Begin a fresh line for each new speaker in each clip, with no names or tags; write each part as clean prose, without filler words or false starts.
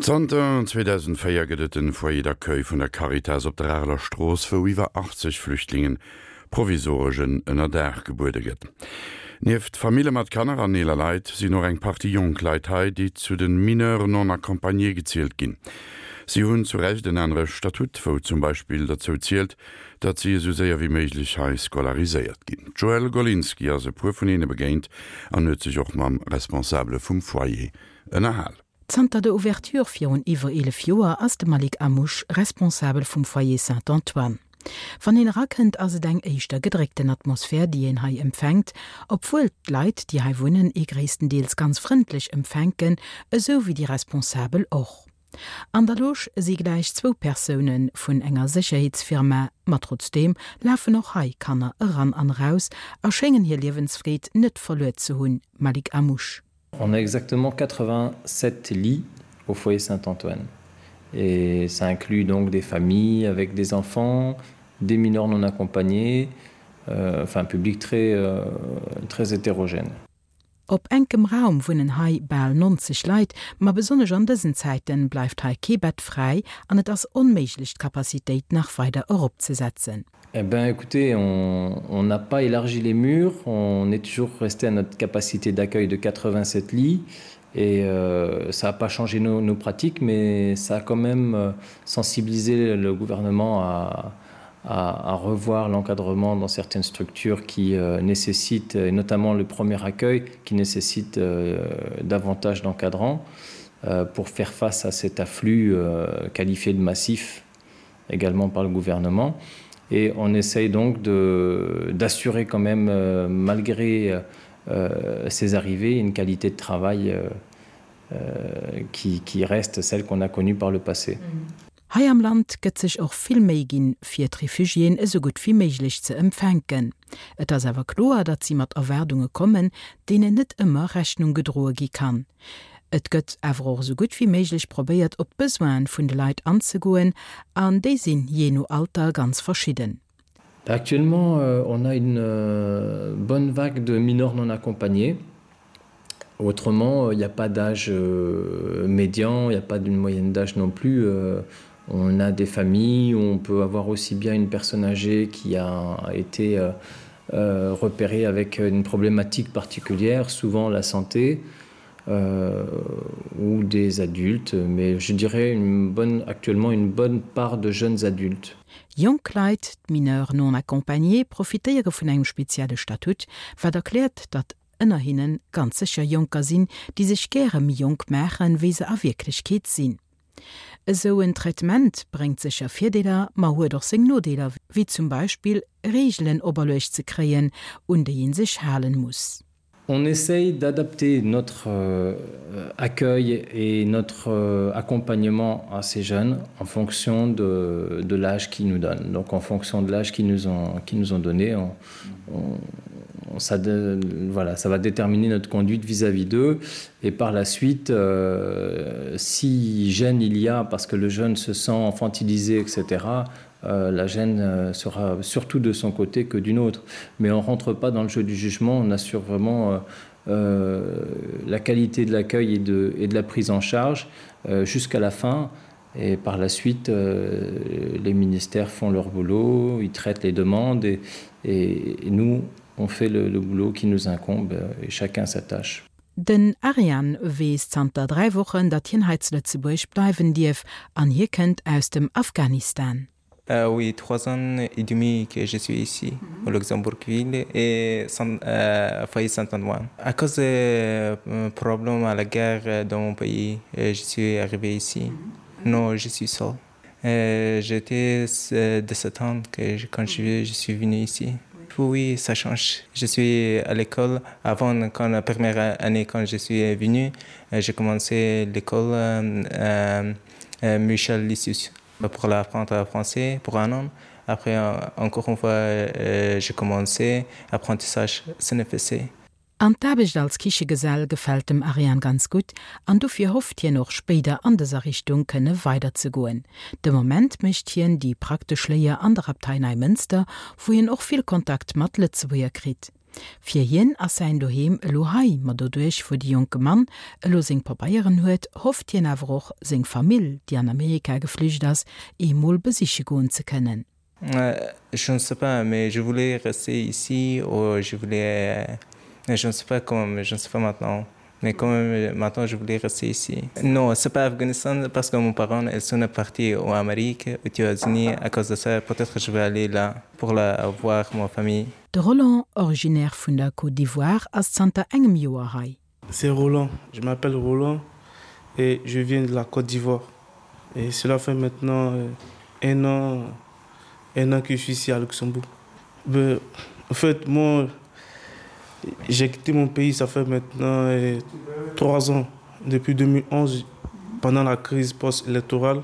Zanter 2004 gëtt et en Foyer d'accueil vun der Caritas op der Areler Strooss, wou iwwer 80 Flüchtlingen provisoresch en Ënnerdaach gebuede gëtt. Nieft Famille mat Kanner an eeler Leit sinn och eng Partie jonk Leit hei, déi zu de Mineurs non accompagnés gezielt ginn. Si hunn zu Recht en anere Statut, wou zum Beispill derzou zielt, datt si esou séier wéi méiglech hei scolariséiert ginn. D'Joëlle Golinski ass e puer vun hinne begéint an huet sech och mam Responsabele vum Foyer ënnerhal.
Zanter der Ouverture virun iwwer 11 Joer ass de Malik Amouche Responsabel vum Foyer Saint-Antoine. Wann een erakënnt ass et eng éischter gedréckten Atmosphär déi een hei empfänkt, obwuel d'Leit déi hei wunnen ee gréisstendeels ganz frëndlech empfänken, esou wéi déi Responsabel och. An der Loge si gläich zwou Persoune vun enger Sécherheetsfirma, ma trotzdeem lafen och hei Kanner eran an eraus a schéngen hir Liewensfreed net verluer ze hunn, Malik Amouche.
On a exactement 87 lits au foyer Saint-Antoine et ça inclut donc des familles avec des enfants, des mineurs non accompagnés, euh, enfin un public très, euh, très hétérogène.
Op enkem Raum wunnen hei bal 90 Leit, ma besonnesch an dësen Zäiten bleift hei kee Bett fräi an et ass onméiglech d'Capacitéit nach weider eropzesetzen.
Eh ben écoutez, on on n'a pas élargi les murs, on est toujours resté à notre capacité d'accueil de 87 lits et euh, ça n'a pas changé nos, nos pratiques, mais ça a quand même euh, sensibilisé le gouvernement à, à, à revoir l'encadrement dans certaines structures qui euh, nécessitent, et notamment le premier accueil, qui nécessite euh, davantage d'encadrants euh, pour faire face à cet afflux euh, qualifié de massif également par le gouvernement. Et on essaye donc d'assurer quand même, euh, malgré euh, ces arrivées, une qualité de travail euh, euh, qui, qui reste celle qu'on a connue par le passé.
Mmh. Hei am Land gëtt sech och vill Méi ginn, fir d'Refugiéen esou gutt wéi méiglech ze empfänken. Et ass awer kloer, datt si mat Erwaardunge kommen, deenen net ëmmer Rechnung gedroe gi kann. Et gëtt awer och esou gutt wéi méiglech probéiert, op d'Besoine vun de Leit anzegoen, an déi sinn jee no Alter ganz verschidden.
Actuellement, on a une bonne vague de mineurs non accompagnés. Autrement, il n'y a pas d'âge médian, il n'y a pas d'une moyenne d'âge non plus. On a des familles où on peut avoir aussi bien une personne âgée qui a été repérée avec une problématique particulière, souvent la santé, euh, ou des adultes, mais je dirais une bonne, actuellement une bonne part de jeunes adultes.
Jonk Leit, d'Mineurs non accompagnés, profitéiere vun engem spezielle Statut, wat erkläert, datt ënner hinne ganz sécher Jonker sinn, déi sech gäre méi jonk maachen, wéi se a Wierklechkeet sinn. Esou en Traitement bréngt sécher Virdeeler, ma huet och seng Nodeeler, wéi zum Beispill Reegelen operluecht ze kréien, un déi ee sech halen muss.
On essaye d'adapter notre euh, accueil et notre euh, accompagnement à ces jeunes en fonction de, de l'âge qu'ils nous donnent. Donc en fonction de l'âge qu'ils nous ont, qui nous ont donné, on, on, ça, de, voilà, ça va déterminer notre conduite vis-à-vis d'eux. Et par la suite, euh, si gêne il y a parce que le jeune se sent infantilisé, etc., euh, la gêne euh, sera surtout de son côté que d'une autre. Mais on rentre pas dans le jeu du jugement, on assure vraiment euh, euh, la qualité de l'accueil et de, et de la prise en charge euh, jusqu'à la fin. Et par la suite, euh, les ministères font leur boulot, ils traitent les demandes et, et, et nous, on fait le, le boulot qui nous incombe et chacun sa tâche.
Den Arian weess zanter 3 Wochen, datt hien hei zu Lëtzebuerg bleiwen dierf an hie kënnt aus dem Afghanistan.
Euh, oui, trois ans et demi que je suis ici au Luxembourgville et Saint, euh, foyer Saint-Antoine. À cause des euh, problèmes à la guerre dans mon pays, je suis arrivé ici. Non, je suis seul. Euh, J'étais 17 ans que je, quand je, je suis venu ici. Oui, ça change. Je suis à l'école avant quand la première année quand je suis venu, j'ai commencé l'école euh, euh, Michel Lysius pour l'apprendre français pour un an. Après encore une fois euh, j'ai commencé apprentissage CNFC.
An d'Aarbecht als Kichegesell gefält dem Ariane ganz gutt an dofir hofft hien och spéider an dëser Richtung kënne weider ze goen. De Moment mécht hien déi praktesch Léier an der Abtei Neimënster, wou hien och vill Kontakt mat Lëtzebuerger kritt. Fir hien ass säin Doheem elo hei, ma doduerch wou de jonke Mann elo seng Pabeieren huet, hofft hien awer och, seng Famill, déi an Amerika geflücht ass, eemol besiche goen ze kënnen.
Je ne sais pas, mais je voulais rester ici ou je voulais je ne sais pas comment, je ne sais pas maintenant. Mais quand même maintenant je voulais rester ici. Non, c'est pas Afghanistan parce que mon parent elles sont partis en Amérique, aux États-Unis à cause de ça peut-être je vais aller là pour la voir ma famille.
De Roland, originaire vun der Côte d'Ivoire, ass zanter engem Joer hei.
C'est Roland, je m'appelle Roland et je viens de la Côte d'Ivoire. Et cela fait maintenant euh, un an, un an que je suis ici à Luxembourg. Ben, en fait, moi, j'ai quitté mon pays, ça fait maintenant euh, trois ans. Depuis 2011, pendant la crise post-électorale,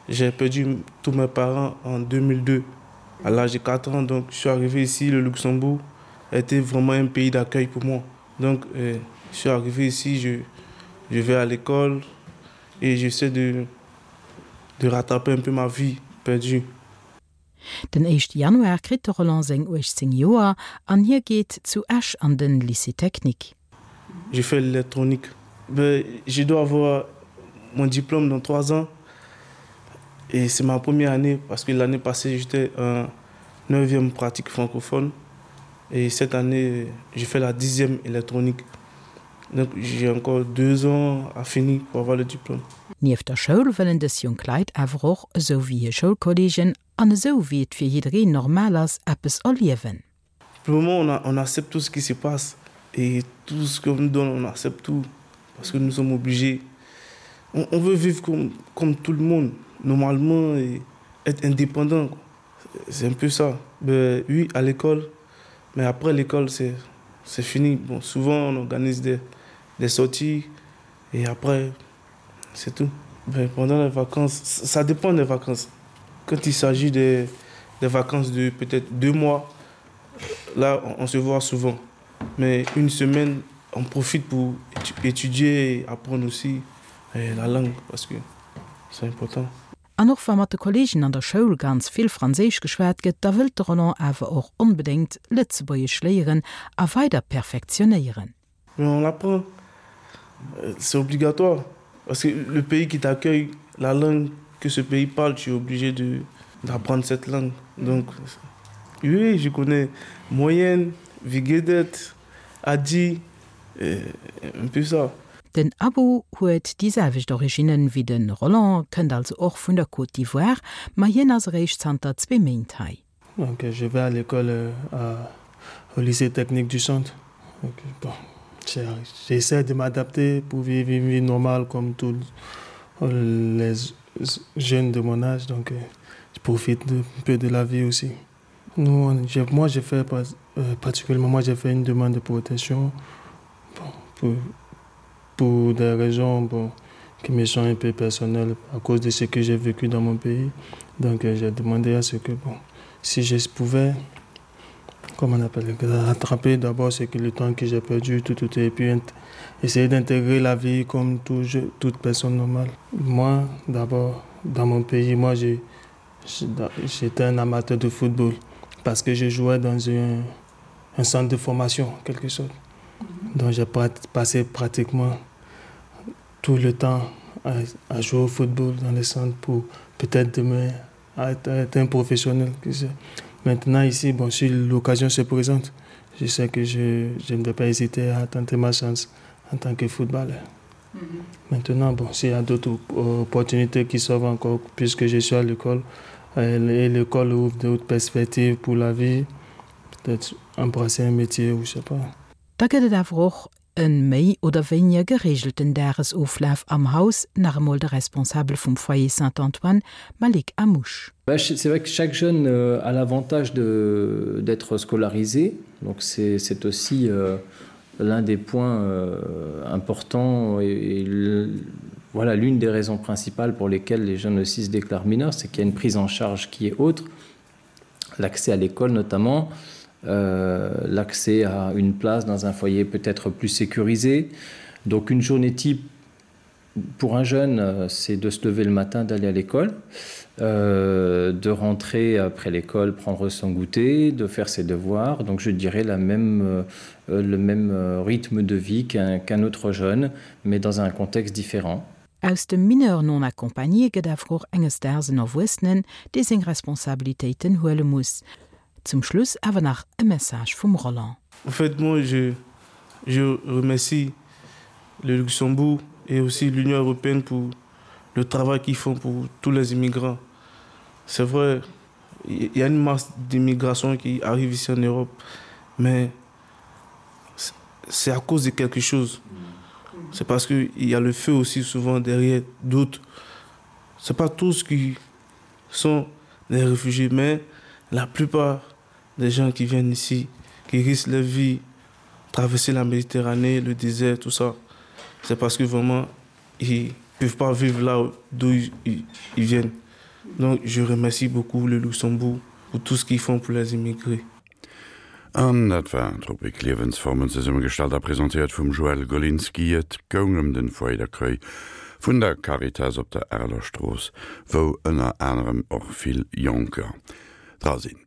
j'ai perdu tous mes parents en 2002. À l'âge de 4 ans, donc je suis arrivé ici, le Luxembourg était vraiment un pays d'accueil pour moi. Donc euh, je suis arrivé ici, je, je vais à l'école et j'essaie de, de rattraper un peu ma vie perdue.
Den éischte Januar kritt de Roland seng 18 Joer an hie geet zu Esch an den Lycée technique.
Je fais l'électronique. Je dois avoir mon diplôme dans trois ans et c'est ma première année parce que l'année passée j'étais en neuvième pratique francophone et cette année je fais la dixième électronique. Donc j'ai encore deux ans à finir pour avoir le diplôme.
Nieft der Schoul wëllen dës jonk Leit awer och, esou wéi hir Schoulkolleegen an esou wéi et fir jiddereen normal ass, eppes erliewen.
Pour le moment on a, on accepte tout ce qui se passe et tout ce qu'on nous donne on accepte tout parce que nous sommes obligés. On, on veut vivre comme, comme tout le monde normalement et être indépendant quoi. C'est un peu ça. Ben, oui, à l'école, mais après l'école c'est c'est fini. Bon, souvent on organise des, des sorties et après c'est tout. Ben, pendant les vacances, ça dépend des vacances. Quand il s'agit des, des vacances de peut-être deux mois, là on, on se voit souvent. Mais une semaine, on profite pour étudier et apprendre aussi eh, la langue parce que c'est important.
An och wa mat de Kolleegen an der Schoul ganz vill Franséisch geschwat gëtt, da wëllt de Roland awer och onbedéngt Lëtzebuergesch léieren a weider perfektionéieren.
Mais on l'apprend, c'est obligatoire parce que le pays qui t'accueille, la langue que ce pays parle, tu es obligé de d'apprendre cette langue. Donc oui, je connais moyenne, Viguedet, Adi, un peu ça.
Den Abou huet déi selwecht Originnen wéi de Roland, kënnt also och vun der Côte d'Ivoire, ma hien ass eréischt zanter zwee Méint hei.
Donc je vais à l'école à au lycée technique du centre. Donc bon, j'essaie de m'adapter pour vivre une vie normale comme tous les jeunes de mon âge donc je profite un peu de la vie aussi. Nous, moi j'ai fait euh, particulièrement moi j'ai fait une demande de protection bon, pour, pour des raisons bon, qui me sont un peu personnelles à cause de ce que j'ai vécu dans mon pays. Donc euh, j'ai demandé à ce que bon, si je pouvais comme on appelle rattraper d'abord ce que le temps que j'ai perdu tout, tout et puis essayer d'intégrer la vie comme tout, je, toute personne normale. Moi d'abord dans mon pays, moi j'ai j'étais un amateur de football parce que je jouais dans un, un centre de formation quelque sorte. Donc j'ai passé pratiquement tout le temps à, à jouer au football dans les centres pour peut-être demain être, être un professionnel. Maintenant ici, bon, si l'occasion se présente, je sais que je, je ne vais pas hésiter à tenter ma chance en tant que footballeur. Mm -hmm. Maintenant, bon, s'il y a d'autres opportunités qui s'offrent encore, puisque je suis à l'école, euh, et l'école ouvre d'autres perspectives pour la vie, peut-être embrasser un métier ou je sais pas.
Da gëtt et awer och e méi oder wéinier gereegelten Dagesoflaf am Haus, nach emol de Responsabel vum Foyer Saint-Antoine, Malik Amouche.
C'est vrai que chaque jeune euh, a l'avantage d'être scolarisé, donc c'est aussi euh, l'un des points euh, importants et, et voilà l'une des raisons principales pour lesquelles les jeunes aussi se déclarent mineurs, c'est qu'il y a une prise en charge qui est autre, l'accès à l'école notamment, euh, l'accès à une place dans un foyer peut-être plus sécurisé. Donc une journée type. Pour un jeune, euh, c'est de se lever le matin, d'aller à l'école, euh, de rentrer après l'école, prendre son goûter, de faire ses devoirs. Donc je dirais la même, euh, le même euh, rythme de vie qu'un qu autre jeune, mais dans un contexte différent.
Aus dem Mineur non accompagné gëtt awer och enges Daags en Erwuessenen, dee seng Responsabilitéiten huele muss. Zum Schluss awer nach e Message vum Roland.
En fait, moi, je, je remercie le Luxembourg et aussi l'Union européenne pour le travail qu'ils font pour tous les immigrants. C'est vrai, il y a une masse d'immigration qui arrive ici en Europe, mais c'est à cause de quelque chose. C'est parce qu'il y a le feu aussi souvent derrière d'autres. C'est pas tous qui sont des réfugiés, mais la plupart des gens qui viennent ici, qui risquent leur vie, traverser la Méditerranée, le désert, tout ça, c'est parce que vraiment, ils peuvent pas vivre là d'où ils, ils viennent. Donc je remercie beaucoup le Luxembourg pour tout ce qu'ils font pour les immigrés.
An dat war d'Rubrik Liewensformen, zesummegestallt a presentéiert vum Joël Golinski. Et goung ëm den Foyer d'accueil vun der Caritas op der Areler Strooss, wou ënner anerem och vill Jonker dra sinn.